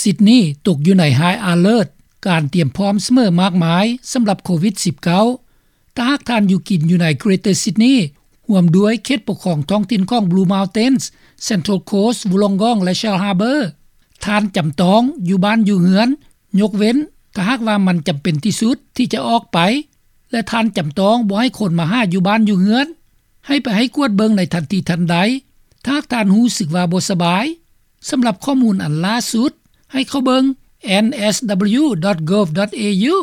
ຊິດນີ ຕົກຢູ່ໃນ High Alert ການຕຣຽມພ້ອມສະເໝີມາກມາຍ ສຳລັບໂຄວິດ-19. ຖ້າຫາກທ່ານຢູ່ກິນຢູ່ໃນ Greater Sydney ຮ່ວມດ້ວຍເຂດປົກຄອງທ້ອງຖິ່ນຂອງ Blue Mountains, Central Coast, Wollongong ແລະ Shell Harbour, ທ່ານຈຳຕ້ອງຢູ່ບ້ານຢູ່ເຮືອນ ຍົກເວັ້ນຖ້າຫາກວ່າມັນຈຳເປັນທີ່ສຸດທີ່ຈະອອກໄປ ແລະ ທ່ານຈຳຕ້ອງບໍ່ໃຫ້ຄົນມາຫາຢູ່ບ້ານຢູ່ເຮືອນ. ໃຫ້ໄປໃຫ້ກວດເບິ່ງໃນທັນທີທັນໃດ ຖ້າຫາກທ່ານຮູ້ສຶກວ່າບໍ່ສະບາຍ. ສຳລັບຂໍ້ມູນອັນຫຼ້າສຸດ ໃຫ້ເຂົ້າເບິ່ງ N S W dot gov dot A U.